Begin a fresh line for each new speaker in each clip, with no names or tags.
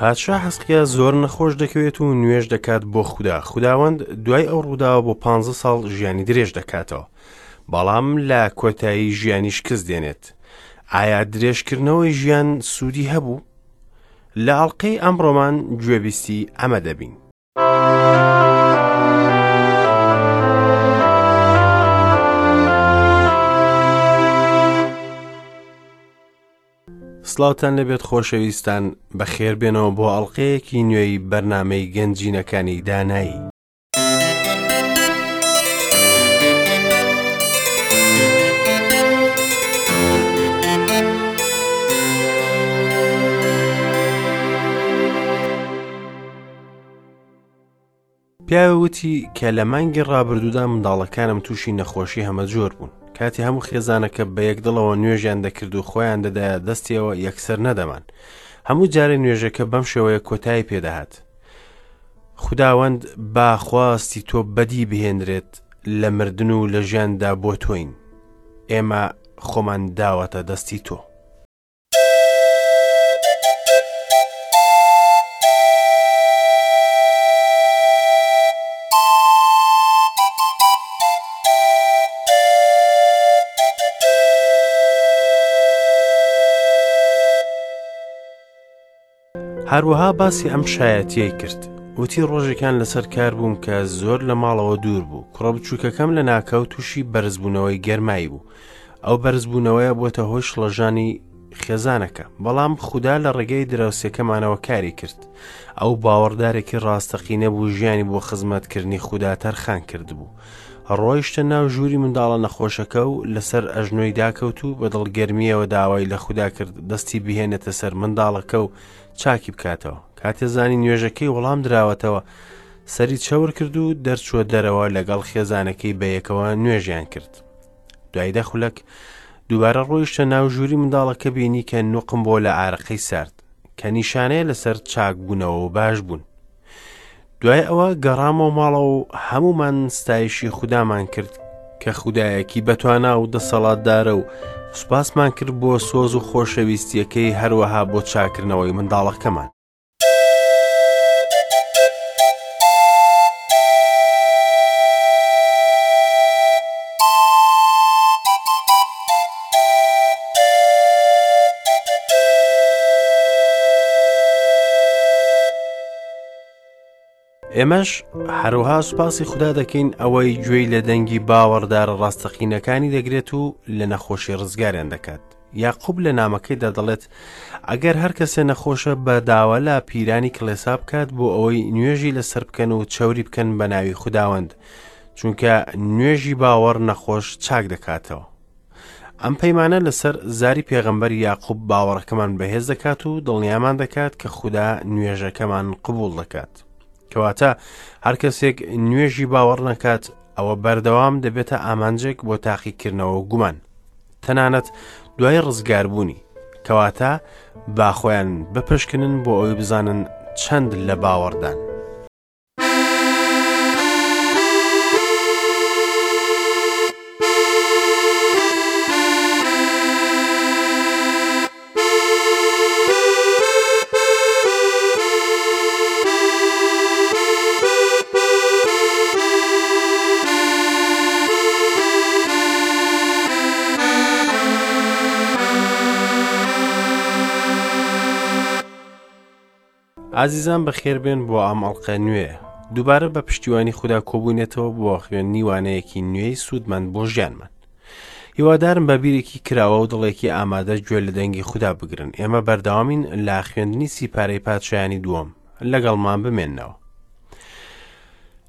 پادشا حەزقیا زۆر نەخۆش دەکەوێت و نوێژ دەکات بۆ خودا. خوداوەند دوای ئەو ڕووداوە بۆ پانزە ساڵ ژیانی درێژ دەکاتەوە. بەڵام لە کۆتایی ژیانی شکست دێنێت. ئایا درێژکردنەوەی ژیان سوودی هەبوو؟ لە ئەڵقەی ئەمڕۆمان گوێبیستی ئەمە دەبین. سڵاوتان لەبێت خۆشەویستان بەخێربێنەوە بۆ ئەڵلقەیەکی نوێی بەرنمەی گەنجینەکانی دانایی. پیاوێ وتی کە لە مانگی ڕابردوودا منداڵەکانم تووشی نەخۆشی هەمەجۆر بوون. کاتی هەموو خێزانەکە بە یەک دڵەوە نوێژیان دەکرد و خۆیان دەدایە دەستیەوە یەکسەر نەدەمان. هەموو جارێ نوێژەکە بەم شێوەیە کۆتایی پێدەهات. خوداوەند با خواستی تۆ بەدی بهێنرێت لە مردن و لە ژیاندا بۆ تۆین. ئێمە خۆمان داوەتە دەستی تۆ. هەروەها باسی ئەم شایەتیەی کرد وتی ڕۆژێکان لەسەر کار بووم کە زۆر لە ماڵەوە دوور بوو کوڕە بچووکەکەم لە ناکاو تووشی بەرزبوونەوەی گەرمایی بوو ئەو بەرزبوونەوەیە بۆتە هۆی شڵەژانی خێزانەکە بەڵام خودا لە ڕێگەی دراوسێکەمانەوە کاری کرد ئەو باوەڕدارێکی ڕاستەقینە بوو ژیانی بۆ خزمەتکردنی خودا تەرخان کردبوو ڕۆیشتە ناو ژووری منداڵە نەخۆشەکە و لەسەر ئەژنۆی داکەوت و بە دڵگەرمییەوە داوای لە خودا کرد دەستی بهێنێتە سەر منداڵەکە و چاکی بکاتەوە کاتێ زانی نوێژەکەی وەڵام دراوەتەوە سەری چەور کرد و دەرچووە دەرەوە لەگەڵ خێزانەکەی بەیەکەوە نوێژیان کرد دوای دە خولەک دووبارە ڕۆیشتە ناو ژووری منداڵەکە بینی کە نوقم بۆ لە ئارەقەی سارد کە نیشانەیە لەسەر چاکبوونەوە و باش بوون دوای ئەوە گەڕامەوە ماڵەوە و هەمومان ستایشی خودامان کرد کە خودایەکی بەتوانا و دەسەڵاتدارە و سوپاسمان کرد بۆ سۆز و خۆشەویستیەکەی هەروەها بۆ چاکردنەوەی منداڵەکەمان. ئێمەش هەروها سوپاسی خودا دەکەین ئەوەی گوێی لە دەنگی باوەڕدارە ڕاستەقینەکانی دەگرێت و لە نەخۆشی ڕزگاریان دەکات. یاقوب لە نامەکەیدا دەڵێت ئەگەر هەر کەسێ نەخۆشە بە داوا لە پیرانی کڵێسا بکات بۆ ئەوەی نوێژی لەسەر بکەن و چەوری بکەن بە ناوی خوداوەند چونکە نوێژی باوەڕ نەخۆش چاک دەکاتەوە ئەم پەیمانە لەسەر زاری پێغەمبەر یاقوب باوەڕەکەمان بەهێز دەکات و دڵنیامان دەکات کە خودا نوێژەکەمان قبوڵ دەکات کەواتە هەر کەسێک نوێژی باوەڕ نەکات ئەوە بەردەوام دەبێتە ئامانجێک بۆ تاقیکردنەوە و گومان تەنانەت دوای ڕزگاربوونی کەواتە با خۆیان بپشکنن بۆ ئەوەی بزانن چەند لە باوەڕدان. ئازیزان بەخێربێن بۆ ئەم ئەڵقە نوێ دووبارە بە پشتیوانی خودا کۆبووینەتەوە بۆ خوێندنی وانەیەکی نوێی سوودمەند بۆ ژیانمان هیوادارم بە بیرێکی کراوە و دڵێکی ئامادە گوێ لە دەنگی خودا بگرن ئێمە بەردەوامین لە خوێندنی سیپارەی پادشایانی دووەم لەگەڵمان بمێنەوە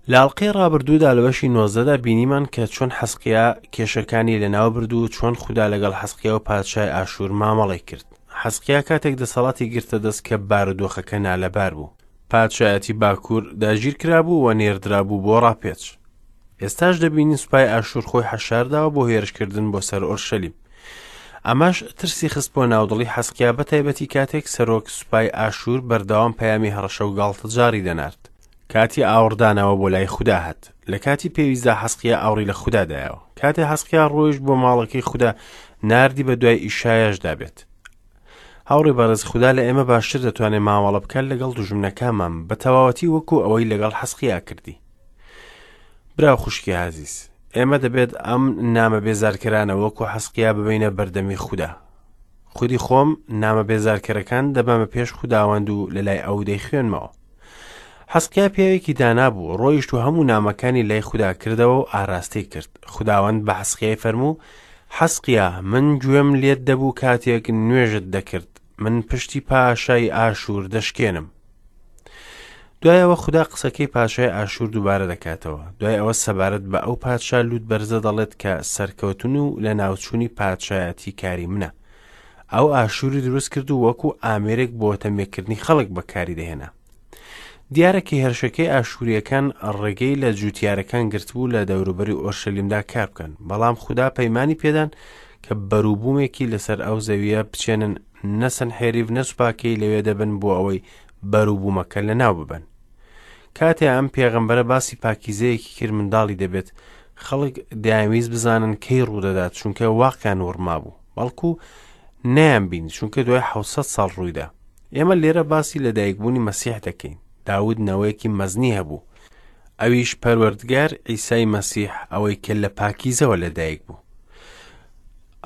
لە ئەڵقەی ڕابردوودا لە بەشی نۆزدەدا بینیمان کە چۆن حەسقیا کێشەکانی لەناو برد و چۆن خودا لەگەڵ حەسقیا و پادشای ئاشوور مامەڵەی کرد حەسقیا کاتێک دەسەڵاتی گرتە دەست کە بارودۆخەکە نالەبار بوو پادشایەتی باکوور داگیر کرابوو و نێردرابوو بۆ ڕاپێچ ئێستاش دەبینین سوپای ئاشوور خۆی حەشارداوە بۆ هێرشکردن بۆ سەر ئۆرشەلیم ئەمەش ترسی خستبووە ناودڵی حەسقیا بە تایبەتی کاتێک سەرۆک سوپای ئاشوور بەردەوام پەیامی هەڕەشە و گاڵتەجاڕی دەنارد کاتی ئاوڕدانەوە بۆ لای خودا هات لە کاتی پێویستدا حەسقیا ئاوڕی لە خودا دایەوە کاتێ حەسقیا ڕۆیشت بۆ ماڵەکەی خودا ناردی بە دوای ئیشایاشدا بێت. هاوڕێ بەڕێز خودا لە ئێمە باشتر دەتوانێت مامەڵە بکات لەگەڵ دوژمنەکانمان بە تەواوەتی وەکو ئەوەی لەگەڵ حەسقیا کردی. برا و خوشکی ئازیز، ئێمە دەبێت ئەم نامە بێزارکەرانە وەکو حەسقیا ببەینە بەردەمی خودا. خودی خۆم نامە بێزارکەرەکان دەبەمە پێش خوداوەند و لەلای ئەو دەیخوێنمەوە. حەسقیا پیاوێکی دانا بوو، ڕۆیشت و هەموو نامەکانی لای خودا کردەوە و ئاراستەی کرد. خوداوەند بە حەسقیای فەرموو، حەسقیا، من گوێم لێت دەبوو کاتێک نوێژت دەکرد، من پشتی پاشای ئاشور دەشکێنم. دوای ئەوە خودا قسەکەی پاشای ئاشور دووبارە دەکاتەوە. دوای ئەوە سەبارەت بە ئەو پادشا لوت بەرزە دەڵێت کە سەرکەوتن و لەناوچوونی پادشایەتی کاری منە. ئەو ئاشوری دروست کرد و وەکو ئامێرێک بۆ تەمێکردنی خەڵک بەکاری دەهێنا. دیارە کە هێرشەکەی ئاشوورییەکان ڕێگەی لە جووتیارەکان گرتبوو لە دەوروبەری ئۆرشەلیمدا کار بکەن، بەڵام خودا پەیمانی پێدان کە بەروبوومێکی لەسەر ئەو زەوییە بچێنن، نە سەنحێریڤ نە سوپاکەی لەوێ دەبن بۆ ئەوەی بەروبوومەکە لەناو ببەن. کاتێ ئەم پێغەمبەرە باسی پاکیزەیەکی کرد منداڵی دەبێت، خەڵک دەیانویست بزانن کەی ڕوودەدات چونکە واقیان وڕمابوو، بەڵکو نەیانبینی چونکە دوای 700 ساڵ ڕوویدا. ئێمە لێرە باسی لەدایکبوونی مەسیح دەکەین. داود نەوەیەکی مەزنی هەبوو، ئەویش پەروەردگار عیسای مەسیح ئەوەی کە لە پاکیزەوە لەدایک بوو.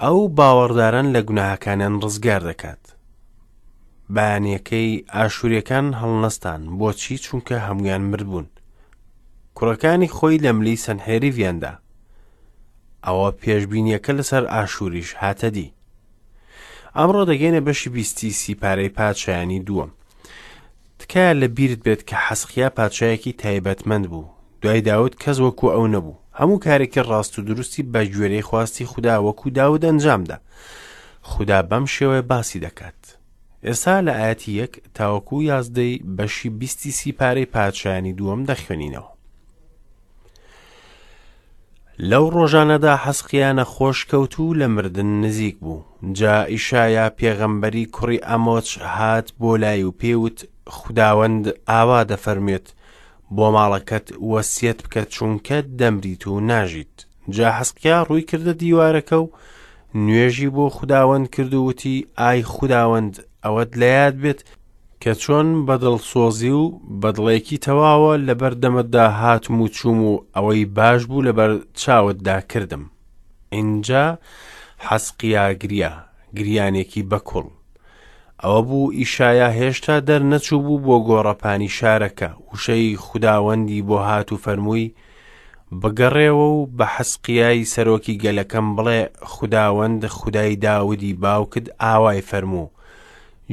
ئەو باوەڕداران لە گوناهەکانیان ڕزگار دەکات. بەیانیەکەی ئاشوریەکان هەڵنەستان، بۆچی؟ چونکە هەمویان مردبوون. کوڕەکانی خۆی لە ملی سەنحێریڤیان دا. ئەوە پێشبینیەکە لەسەر ئاشوریش هاتە دی. ئەمڕۆ دەگەینە بەشی بیستی سیپارەی پادشایانی دووەم. تکایە لە بیرت بێت کە حەسقیا پادشایەکی تایبەتمەند بوو. دوای داود کەس وەکو ئەو نەبوو. هەموو کارێکی ڕاست و دروستی بە گوێرەی خواستی خودا وەکو داود ئەنجامدا. خودا بەم شێوەیە باسی دەکات. ئێستا لە ئایەتی یەک تاوەکو یازدەی بەشی بیستی سیپارەی پادشایانی دووەم دەخوێنینەوە. لەو ڕۆژانەدا حەزقیا نەخۆش کەوت و لە مردن نزیک بوو. جا ئیشایا پێغەمبەری کوڕی ئەمۆچ هات بۆ لای و پێی وت، خوداوەند ئاوا دەفەرموێت، بۆ ماڵەکەت وەسیەت بکە چونکە دەمریت و ناژیت. جا حەزقیا ڕووی کردە دیوارەکە و نوێژی بۆ خوداوەند کرد و وتی، ئای خوداوەند، ئەوەت لە یاد بێت کە چۆن بە دڵسۆزی و بە دڵێکی تەواوە لەبەر دەمتدا هاتم و چووم و ئەوەی باش بوو لەبەر چاوتدا کردم. ئینجا حەزقیا گریا، گریانێکی بەکوڵ. ئەوە بوو ئیشایا هێشتا دەرنەچوو بوو بۆ گۆڕەپانی شارەکە، وشەی خوداوەندی بۆ هات و فەرمووی، بگەڕێوە و بە حەزقیای سەرۆکی گەلەکەم بڵێ، خوداوەند خودای داودی باوکت ئاوای فەرموو،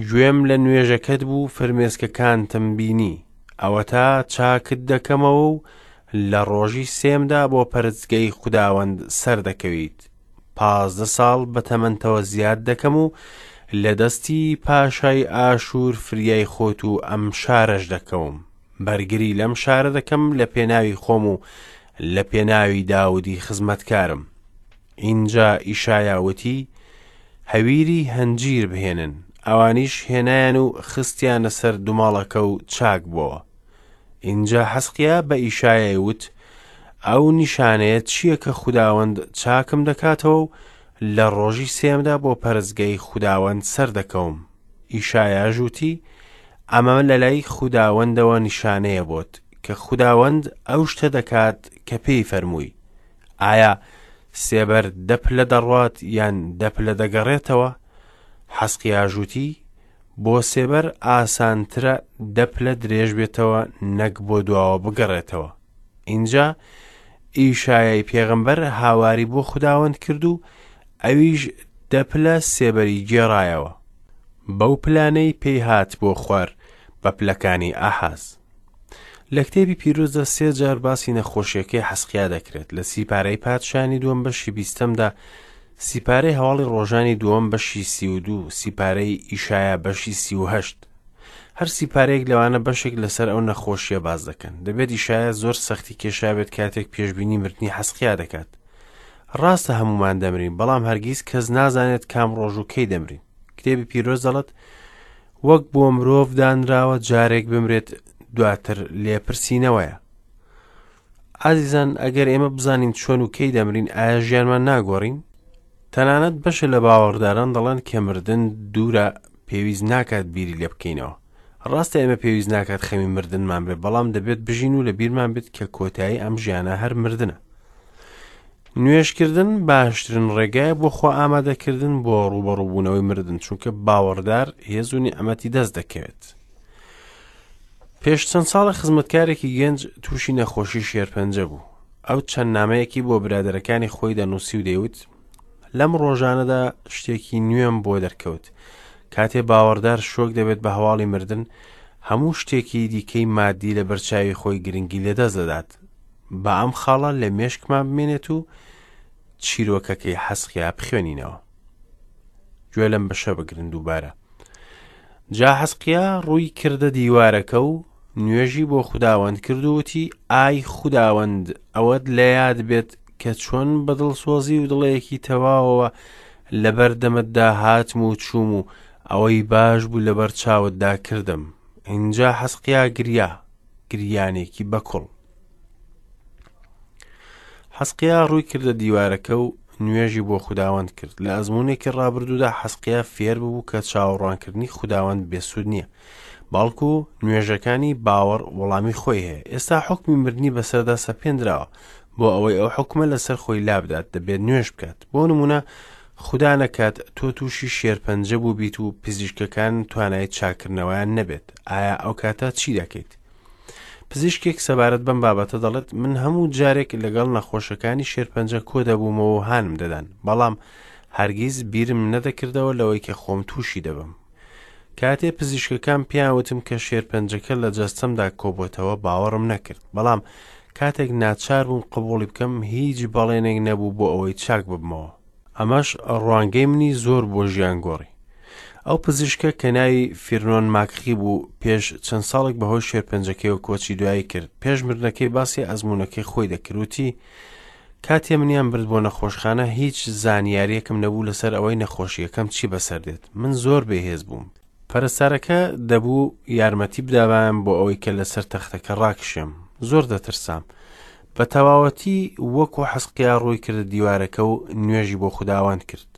گوێم لە نوێژەکەت بوو فرمێسکەکانتم بینی، ئەوەتا چاکت دەکەمەوە و لە ڕۆژی سێمدا بۆ پەرستگەی خوداوەند سەردەکەویت. 15 ساڵ بە تەمەنتەوە زیاد دەکەم و لە دەستی پاشای ئاشوور فریای خۆت و ئەم شارەش دەکەوم. بەرگری لەم شارە دەکەم لە پێناوی خۆم و لە پێناوی داودی خزمەتکارم. ئینجا ئیشایا وتی، هەویری هەنجیر بهێنن. ئەوانیش هێنایان و خستیانە سەر دومەڵەکە و چاک بۆوە. ئینجا حەزقیا بە ئیشایای وت، ئەو نیشانەیە چییە کە خوداوەند چاکم دەکاتەوە و لە ڕۆژی سێیەمدا بۆ پەرستگای خوداوەند سەردەکەوم؟ ئیشایاش وتی، ئەمە لەلای خوداوەندەوە نیشانەیە بۆت، کە خوداوەند ئەو شتە دەکات کە پێی فەرمووی. ئایا سێبەر دە پلە دەڕوات یان دە پلە دەگەڕێتەوە؟ حەزقیاش وتی، بۆ سێبەر ئاسانترە دە پلە درێژ بێتەوە نەک بۆ دواوە بگەڕێتەوە. ئینجا ئیشایای پێغەمبەر هاواری بۆ خوداوەند کرد و ئەویش دە پلە سێبەری گێڕایەوە بەو پلانەی پێی هات بۆ خوار بە پلەکانی ئاحاز. لە کتێبی پیرۆزدا سێ جار باسی نەخۆشیەکەی حەسقیا دەکرێت لە سیپارەی پادشانی دووەم بەشی بیستەمدا سیپارەی هەواڵی ڕۆژانی دووەم بەشی 32 سیپارەی ئیشایا بەشی 38 هەر سیپارەیەک لەوانە بەشێک لەسەر ئەو نەخۆشیە باز دەکەن دەبێت ئیشایا زۆر سەختی کێشابێت کاتێک پێشبینی مردنی حەسقیا دەکات ڕاستە هەمومان دەمرین بەڵام هەرگیز کەس نازانێت کام ڕۆژ و کەی دەمرین کتێبی پیرۆز دەڵێت وەک بۆ مرۆڤ دانراوە جارێک بمرێت دواتر لێپرسینەوەیە. ئازیزان ئەگەر ئێمە بزانین چۆن و کەی دەمرین ئایا ژیانمان ناگۆڕین؟ تەنانەت بەشە لە باوەڕداران دەڵێن کە مردن دوورە پێویست ناکات بیری لێ بکەینەوە. ڕاستە ئێمە پێویست ناکات خەمی مردنمان بێت، بەڵام دەبێت بژین و لە بیرمان بێت کە کۆتایی ئەم ژیانە هەر مردنە. نوێژکردن باشترین ڕێگایە بۆ خۆ ئامادەکردن بۆ ڕووبەڕووبوونەوەی مردن، چونکە باوەڕدار هێز و نیعمەتی دەست دەکەوێت. پێش چەند ساڵە خزمەتکارێکی گەنج تووشی نەخۆشی شێرپەنجە بوو. ئەو چەند نامەیەکی بۆ برادەرەکانی خۆی دەنووسی و دەیوت لەم ڕۆژانەدا شتێکی نوێم بۆ دەرکەوت. کاتێ باوەڕدار شۆک دەبێت بە هەواڵی مردن، هەموو شتێکی دیکەی مادی لە بەرچاوی خۆی گرنگی لەدەست دەدات. با ئەم خاڵە لە مێشکمان بمێنێت و چیرۆکەکەی حەسقیا بخوێنینەوە. گوێ لەم بەشە بگرن دووبارە. جا حەسقیا ڕووی کردە دیوارەکە و نوێژی بۆ خوداوەند کرد و وتی ئای خوداوەند ئەوەت لە یاد بێت کە چۆن بە دڵسۆزی و دڵێکی تەواوەوە لەبەر دەمتدا هاتم و چووم و ئەوەی باش بوو لەبەر چاوتدا کردم. ئینجا حەسقیا گریا، گریانێکی بەکوڵ. حەسقیا ڕووی کردە دیوارەکە و نوێژی بۆ خوداوەند کرد. لە ئەزموونێکی ڕابردوودا حەسقیا فێر ببوو کە چاوەڕوانکردنی خوداوەند بێسوود نییە، بەڵکو نوێژەکانی باوەڕ وەڵامی خۆی هەیە. ئێستا حوکمی مردنی بەسەردا سەپێندراوە. بۆ ئەوەی ئەو حوکمە لەسەر خۆی لابدات دەبێت نوێژ بکات. بۆ نموونە خودا نەکات تۆ تووشی شێرپەنجە بووبیت و پزیشکەکان توانای چاککردنەوەیان نەبێت، ئایا ئەو کاتە چی دەکەیت؟ پزیشکێک سەبارەت بەم بابەتە دەڵێت من هەموو جارێک لەگەڵ نەخۆشەکانی شێرپەنجە کۆ دەبوومەوە و هانم دەدان، بەڵام هەرگیز بیرم نەدەکردەوە لەوەی کە خۆم تووشی دەبم. کاتێ پزیشکەکان پێیان وتم کە شێرپەنجەکە لە جەستەمدا کۆبۆتەوە باوەڕم نەکرد، بەڵام کاتێک ناچار بووم قبوڵی بکەم هیچ بەڵێنێک نەبوو بۆ ئەوەی چاک ببمەوە. ئەمەش ڕوانگەی منی زۆر بۆ ژیان گۆڕی. ئەو پزیشکە کە ناوی فیرنۆن ماکخی بوو پێش چەند ساڵێک بەهۆی شێرپەنجەکەیەوە کۆچی دوایی کرد. پێش مردنەکەی باسی ئەزموونەکەی خۆی دەکرد وتی کاتێ منیان برد بۆ نەخۆشخانە هیچ زانیاریەکم نەبوو لەسەر ئەوەی نەخۆشیەکەم چی بەسەر دێت. من زۆر بێهێز بووم. پەرستارەکە دەبوو یارمەتی بدابایەم بۆ ئەوەی کە لەسەر تەختەکە ڕاکشێم. زۆر دەترسام. بە تەواوەتی وەکو حەسقیا ڕووی کردە دیوارەکە و نوێژی بۆ خوداوەند کرد.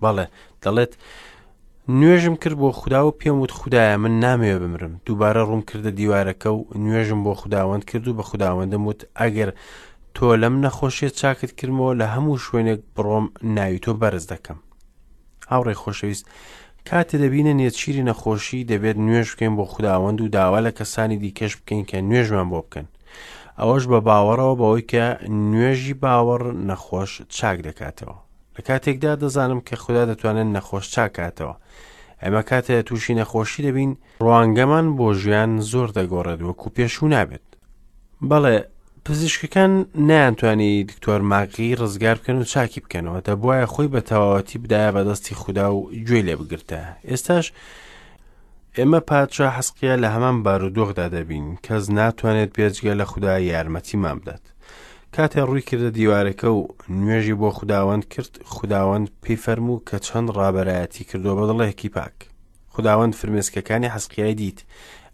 بەڵێ، دەڵێت، نوێژم کرد بۆ خودا و پێم وت خودایە من نامەوێ بمرم. دووبارە ڕووم کردە دیوارەکە و نوێژم بۆ خوداوەند کرد و بە خوداوەندم وت ئەگەر تۆ لەم نەخۆشیە چاکت کردمەوە لە هەموو شوێنێک بڕۆم ناوی تۆ بەرز دەکەم. هاوڕێی خۆشەویست، کاتێ دەبینە نێچیری نەخۆشی دەبێت نوێژ بکەین بۆ خوداوەند و داوا لە کەسانی دیکەش بکەین کە نوێژمان بۆ بکەن. ئەوەش بە باوەڕەوە بەوەی کە نوێژی باوەڕ نەخۆش چاک دەکاتەوە. لە کاتێکدا دەزانم کە خودا دەتوانێت نەخۆش چاکاتەوە. ئێمە کاتێ تووشی نەخۆشی دەبین، ڕوانگەمان بۆ ژیان زۆر دەگۆڕێت وەکو پێشوو نابێت. بەڵێ، پزیشکەکان نەیانتوانی دکتۆر ماگی ڕزگار بکەن و چاکی بکەنەوە، دەبوایە خۆی بە تەواوەتی بدایە بەدەستی خودا و گوێی لێ بگرتایە. ئێستاش ئێمە پادشا حەسقیا لە هەمان بارودۆخدا دەبین، کەس ناتوانێت بێجگە لە خودا یارمەتیمان بدات. کاتێ ڕووی کردە دیوارەکە و نوێژی بۆ خوداوەند کرد، خوداوەند پێی فەرموو کە چەند ڕابەرایەتی کردووە بە دڵێکی پاک. خوداوەند فرمێسکەکانی حەزقیای دیت،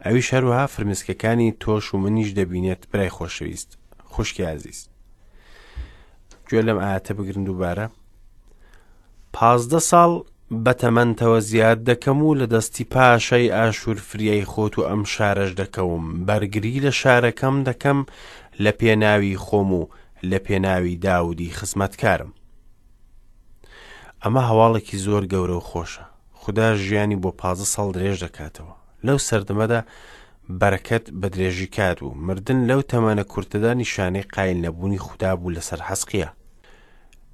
ئەویش هەروەها فرمێسکەکانی تۆش و منیش دەبینێت برای خۆشەویست، خوشکی ئازیز. گوێ لەم ئاەتە بگرن دووبارە. 15 ساڵ بە تەمەنتەوە زیاد دەکەم و لە دەستی پاشای ئاشور فریای خۆت و ئەم شارەش دەکەوم، بەرگری لە شارەکەم دەکەم لە پێناوی خۆم و لە پێناوی داودی خزمەتکارم. ئەمە هەواڵێکی زۆر گەورە و خۆشە. خودا ژیانی بۆ 15 ساڵ درێژ دەکاتەوە. لەو سەردەمەدا بەرەکەت بە درێژی کات بوو. مردن لەو تەمەنە کورتەدا نیشانەی قایل نەبوونی خودا بوو لەسەر حەزقیا.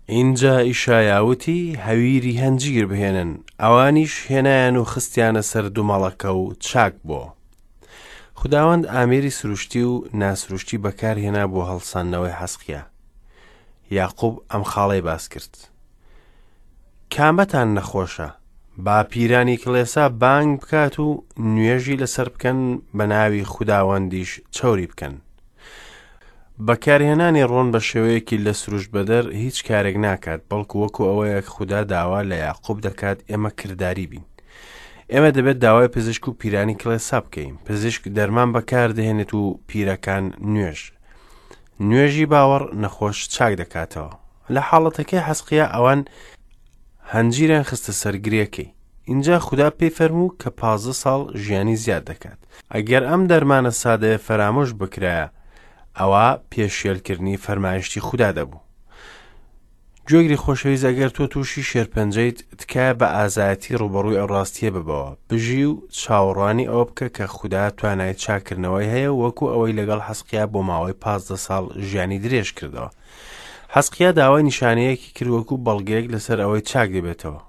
ئینجا ئیشایا وتی، هەویری هەنجیر بهێنن. ئەوانیش هێنایان و خستیانە سەر دومەڵەکە و چاک بۆوە. خوداوەند ئامێری سروشتی و ناسروشتی بەکارهێنا بۆ هەڵساندنەوەی حەزقیا. یاقوب ئەم خاڵەی باس کرد. کامەتان نەخۆشە؟ با پیرانی کڵێسا بانگ بکات و نوێژی لەسەر بکەن بە ناوی خوداوەندیش چەوری بکەن. بەکارهێنانی ڕۆن بە شێوەیەکی لە سروشت بەدەر هیچ کارێک ناکات، بەڵکو وەکو ئەوەیە خودا داوا لە یاقوب دەکات ئێمە کرداری بین. ئێمە دەبێت داوای پزیشک و پیرانی کڵێسا بکەین. پزیشک دەرمان بەکاردەهێنێت و پیرەکان نوێژ. نوێژی باوەڕ نەخۆش چاک دەکاتەوە. لە حاڵەتەکەی حەزقیا ئەوان هەنجیریان خستە سەر گرێکەی. ئینجا خودا پێی فەرموو کە 15 ساڵ ژیانی زیاد دەکات. ئەگەر ئەم دەرمانە سادەیە فەرامۆش بکرایە، ئەوا پێشێلکردنی فەرمایشتی خودا دەبوو. گوێگری خۆشەویست ئەگەر تۆ تووشی شێرپەنجەیت، تکایە بە ئازایەتی ڕووبەڕووی ئەو ڕاستییە ببەوە. بژی و چاوەڕوانی ئەوە بکە کە خودا توانای چاککردنەوەی هەیە و وەکو ئەوەی لەگەڵ حەزقیا بۆ ماوەی 15 ساڵ ژیانی درێژ کردەوە. حەزقیا داوای نیشانەیەکی کرد وەکو بەڵگەیەک لەسەر ئەوەی چاک دەبێتەوە.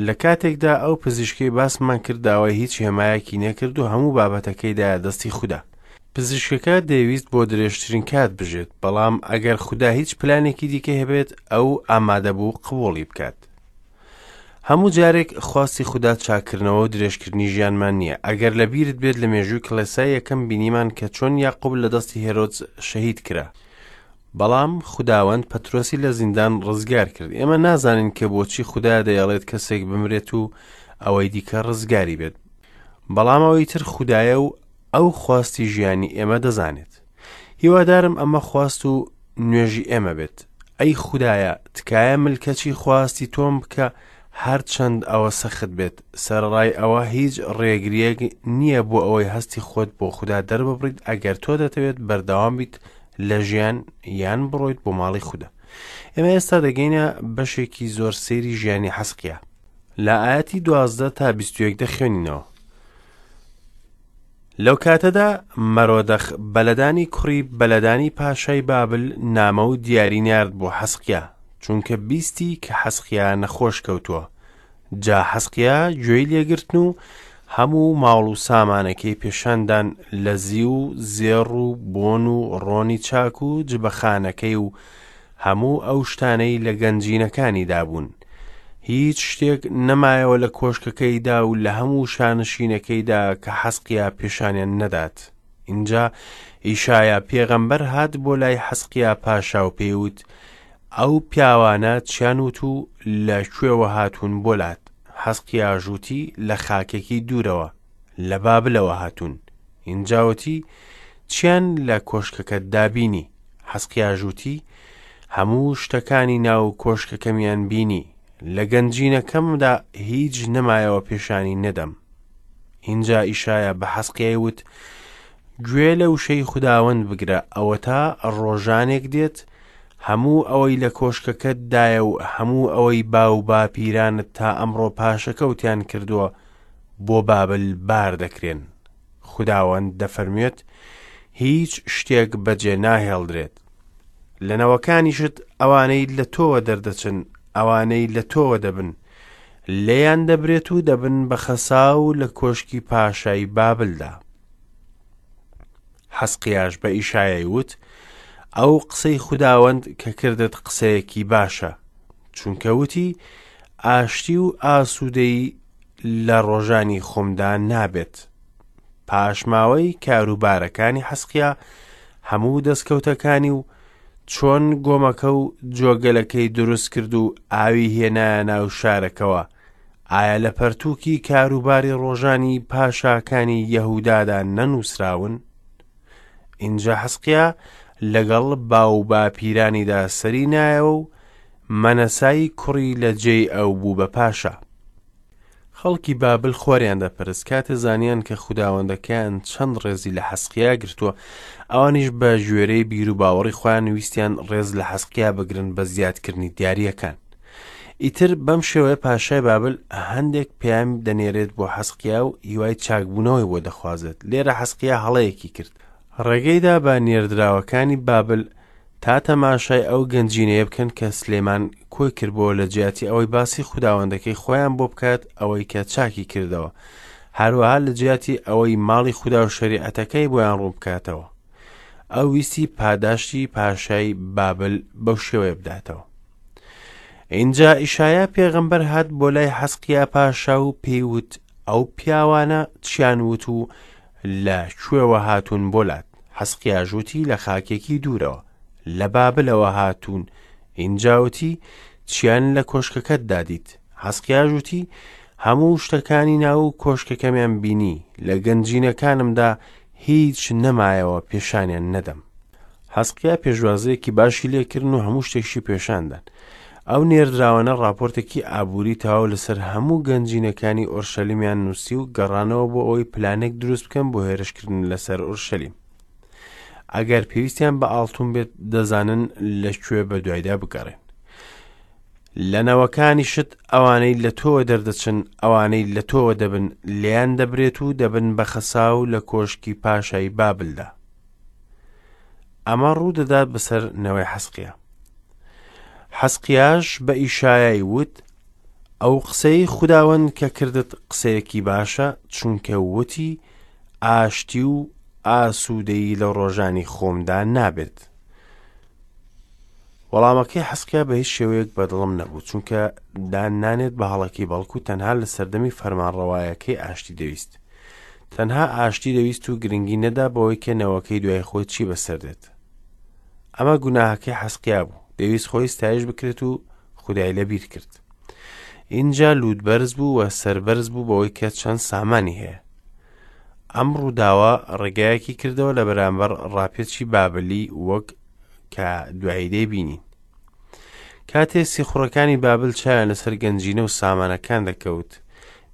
لە کاتێکدا ئەو پزیشکەی باسمان کرد داوای هیچ هێمایەکی نەکرد و هەموو بابەتەکەی دایە دەستی خودا. پزیشکەکە دەیویست بۆ درێژترین کات بژێت، بەڵام ئەگەر خودا هیچ پلانێکی دیکەی هەبێت، ئەو ئامادەبوو قبوڵی بکات. هەموو جارێک خواستی خودا چاککردنەوە و درێژکردنی ژیانمان نییە. ئەگەر لە بیرت بێت لە مێژووی کڵێسای یەکەم بینیمان کە چۆن یاقوب لە دەستی هێرۆدس شەهید کرا. بەڵام خوداوەند پەترۆسی لە زیندان ڕزگار کرد. ئێمە نازانین کە بۆچی خودا دەیەڵێت کەسێک بمرێت و ئەوەی دیکە ڕزگاری بێت. بەڵام ئەوەی تر خودایە و ئەو خواستی ژیانی ئێمە دەزانێت. هیوادارم ئەمە خواست و نوێژی ئێمە بێت. ئەی خودایە، تکایە ملکەچی خواستی تۆم بکە هەرچەند ئەوە سەخت بێت. سەرەڕای ئەوە هیچ ڕێگرییەک نییە بۆ ئەوەی هەستی خۆت بۆ خودا دەرببڕیت ئەگەر تۆ دەتەوێت بەردەوام بیت لە ژیان یان بڕۆیت بۆ ماڵی خودا. ئێمە ئێستا دەگەینە بەشێکی زۆر سەیری ژیانی حەزقیا. لە ئایەتی 12 تا 21 دەخوێنینەوە. لەو کاتەدا مەرۆدەخ بەلەدانی کوڕی بەلەدانی پاشای بابل نامە و دیاری نارد بۆ حەزقیا، چونکە بیستی کە حەزقیا نەخۆش کەوتووە. جا حەزقیا گوێی لێگرتن و هەموو ماڵ و سامانەکەی پێشاندان لە زیو و زێڕ و بۆن و ڕۆنی چاک و جبەخانەکەی و هەموو ئەو شتانەی لە گەنجینەکانیدا بوون. هیچ شتێک نەمایەوە لە کۆشکەکەیدا و لە هەموو شانشینەکەیدا کە حەزقیا پێشانیان نەدات. ئینجا ئیشایا پێغەمبەر هات بۆ لای حەزقیا پاشا و پێی وت، ئەو پیاوانە چیان وت و لە کوێوە هاتوون بۆ لات؟ حەزقیاش وتی، لە خاکێکی دوورەوە، لە بابلەوە هاتوون. ئینجا وتی، چیان لە کۆشکەکەتدا بینی؟ حەزقیاش وتی، هەموو شتەکانی ناو کۆشکەکەمیان بینی، لە گەنجینەکەمدا هیچ نەمایەوە پێشانی نەدەم. ئینجا ئیشایا بە حەزقیای وت، گوێ لە وشەی خوداوەند بگرە، ئەوەتا ڕۆژانێک دێت، هەموو ئەوەی لە کۆشکەکەتدایە و هەموو ئەوەی باوباپیرانت تا ئەمڕۆ پاشەکەوتیان کردووە، بۆ بابل بار دەکرێن. خوداوەند دەفەرموێت، هیچ شتێک بەجێ ناهێڵدرێت. لە نەوەکانیشت ئەوانەی لە تۆوە دەردەچن، ئەوانەی لە تۆوە دەبن، لێیان دەبرێت و دەبن بە خەساو لە کۆشکی پاشای بابلدا. حەزقیاش بە ئیشایای وت، ئەو قسەی خوداوەند کە کردت قسەیەکی باشە، چونکە وتی، ئاشتی و ئاسوودەیی لە ڕۆژانی خۆمدا نابێت. پاشماوەی کاروبارەکانی حەزقیا، هەموو دەستکەوتەکانی و چۆن گۆمەکە و جۆگەلەکەی دروست کرد و ئاوی هێنایە ناو شارەکەوە، ئایا لە پەرتووکی کاروباری ڕۆژانی پاشاکانی یەهودادا نەنووسراون؟ ئینجا حەزقیا لەگەڵ باوباپیرانیدا سەری نایەوە و مەنەسای کوڕی لە جێی ئەو بوو بە پاشا. خەڵکی بابل خۆریان دەپەرست، کاتێ زانیان کە خوداوەندەکەیان چەند ڕێزی لە حەزقیا گرتووە، ئەوانیش بە گوێرەی بیروباوەڕی خۆیان ویستیان ڕێز لە حەزقیا بگرن بە زیادکردنی دیارییەکان. ئیتر بەم شێوەیە پاشای بابل هەندێک پەیام دەنێرێت بۆ حەزقیا و هیوای چاکبوونەوەی بۆ دەخوازێت. لێرە حەزقیا هەڵەیەکی کرد. ڕێگەیدا بە نێردراوەکانی بابل تا تەماشای ئەو گەنجینەیە بکەن کە سلێمان کۆی کردبووەوە لە جیاتی ئەوەی باسی خوداوەندەکەی خۆیان بۆ بکات ئەوەی کە چاکی کردەوە، هەروەها لە جیاتی ئەوەی ماڵی خودا و شەریعەتەکەی بۆیان ڕوون بکاتەوە. ئەو ویستی پاداشتی پاشای بابل بەو شێوەیە بداتەوە. ئینجا ئیشایا پێغەمبەر هات بۆ لای حەزقیا پاشا و پێی وت ئەو پیاوانە چیان وت و لە کوێوە هاتوون بۆ لات؟ حەزقیاش وتی لە خاکێکی دوورەوە، لە بابلەوە هاتوون. ئینجا وتی چیان لە کۆشکەکەتدا دیت؟ حەزقیاش وتی هەموو شتەکانی ناو کۆشکەکەمیان بینی، لە گەنجینەکانمدا هیچ نەمایەوە پێشانیان نەدەم. حەزقیا پێشوازییەکی باشی لێکردن و هەموو شتێکشی پێشاندان. ئەو نێردراوانە ڕاپۆرتێکی ئابووری تەواو لەسەر هەموو گەنجینەکانی ئۆرشەلیمیان نووسی و گەڕانەوە بۆ ئەوەی پلانێک دروست بکەن بۆ هێرشکردن لەسەر ئۆرشەلیم. ئەگەر پێویستیان بە ئاڵتون بێت دەزانن لە کوێ بە دوایدا بگەڕێن. لە نەوەکانیشت ئەوانەی لە تۆوە دەردەچن، ئەوانەی لە تۆوە دەبن، لێیان دەبرێت و دەبن بە خەساو لە کۆشکی پاشای بابلدا. ئەمە ڕوو دەدات بەسەر نەوەی حەسقیا. حەسقیاش بە ئیشایای وت، ئەو قسەی خوداوەند کە کردت قسەیەکی باشە، چونکە وتی ئاشتی و ئاسوودەیی لە ڕۆژانی خۆمدا نابێت. وەڵامەکەی حەسقیا بە هیچ شێوەیەک بەدڵم نەبوو، چونکە دان نانێت بە هەڵەکەی بەڵکو تەنها لە سەردەمی فەرمانڕەوایەکەی ئاشتی دەویست. تەنها ئاشتی دەویست و گرنگی نەدا بەوەی کە نەوەکەی دوای خۆی چی بەسەر دێت. ئەمە گوناهەکەی حەسقیا بوو، دەویست خۆی ستایش بکرێت و خودای لەبیر کرد. ئینجا لووت بەرز بوو و سەربەرز بوو بەوەی کە چەند سامانی هەیە. ئەم ڕووداوە ڕێگایەکی کردەوە لە بەرامبەر ڕاپێچی بابلی وەک کە دوایی دەیبینین. کاتێ سیخوڕەکانی بابل چاویان لەسەر گەنجینە و سامانەکان دەکەوت،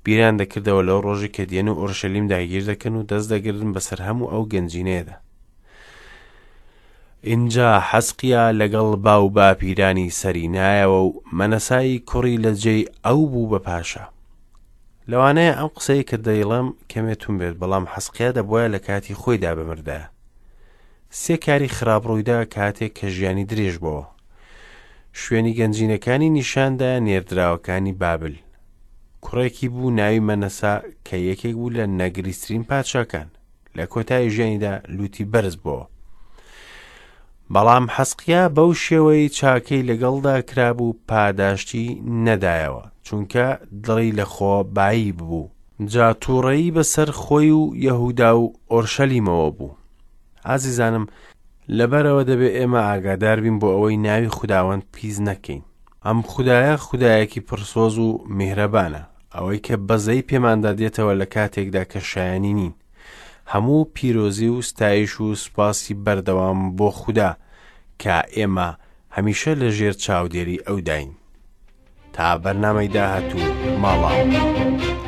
بیریان دەکردەوە لەو ڕۆژی کە دێن و ئۆرشەلیم داگیر دەکەن و دەست دەگرن بەسەر هەموو ئەو گەنجینەیەدا. ئینجا حەزقیا لەگەڵ باو باپیرانی سەری نایەوە و مەنەسای کوڕی لە جێی ئەو بوو بە پاشا. لەوانەیە ئەم قسەی کە دەیڵێم کەمێ تون بێت، بەڵام حەزقیا دەبوایە لە کاتی خۆیدا بمردایە. سێ کاری خراپ ڕوویدا کاتێک کە ژیانی درێژ بۆوە. شوێنی گەنجینەکانی نیشاندا نێردراوەکانی بابل. کوڕێکی بوو ناوی مەنەسا کە یەکێک بوو لە نەگریسترین پادشاکان. لە کۆتایی ژیانیدا لوتی بەرز بۆوە. بەڵام حەسقیا بەو شێوەی چاکەی لەگەڵدا کرابوو پاداشتی نەدایەوە، چونکە دڵی لە خۆ بایی ببوو. جا تووڕەیی بەسەر خۆی و یەهودا و ئۆرشەلیمەوە بوو. ئازیزانم، لەبەرئەوە دەبێ ئێمە ئاگادار بین بۆ ئەوەی ناوی خوداوەند پیس نەکەین. ئەم خودایە خودایەکی پڕسۆز و میهرەبانە، ئەوەی کە بەزەیی پێماندا دێتەوە لە کاتێکدا کە شایەنی نین. هەموو پیرۆزی و ستایش و سوپاسی بەردەوام بۆ خودا کە ئێمە هەمیشە لە ژێر چاودێری ئەوداین. تا بەرنامەی داهاتوو ماڵاوە.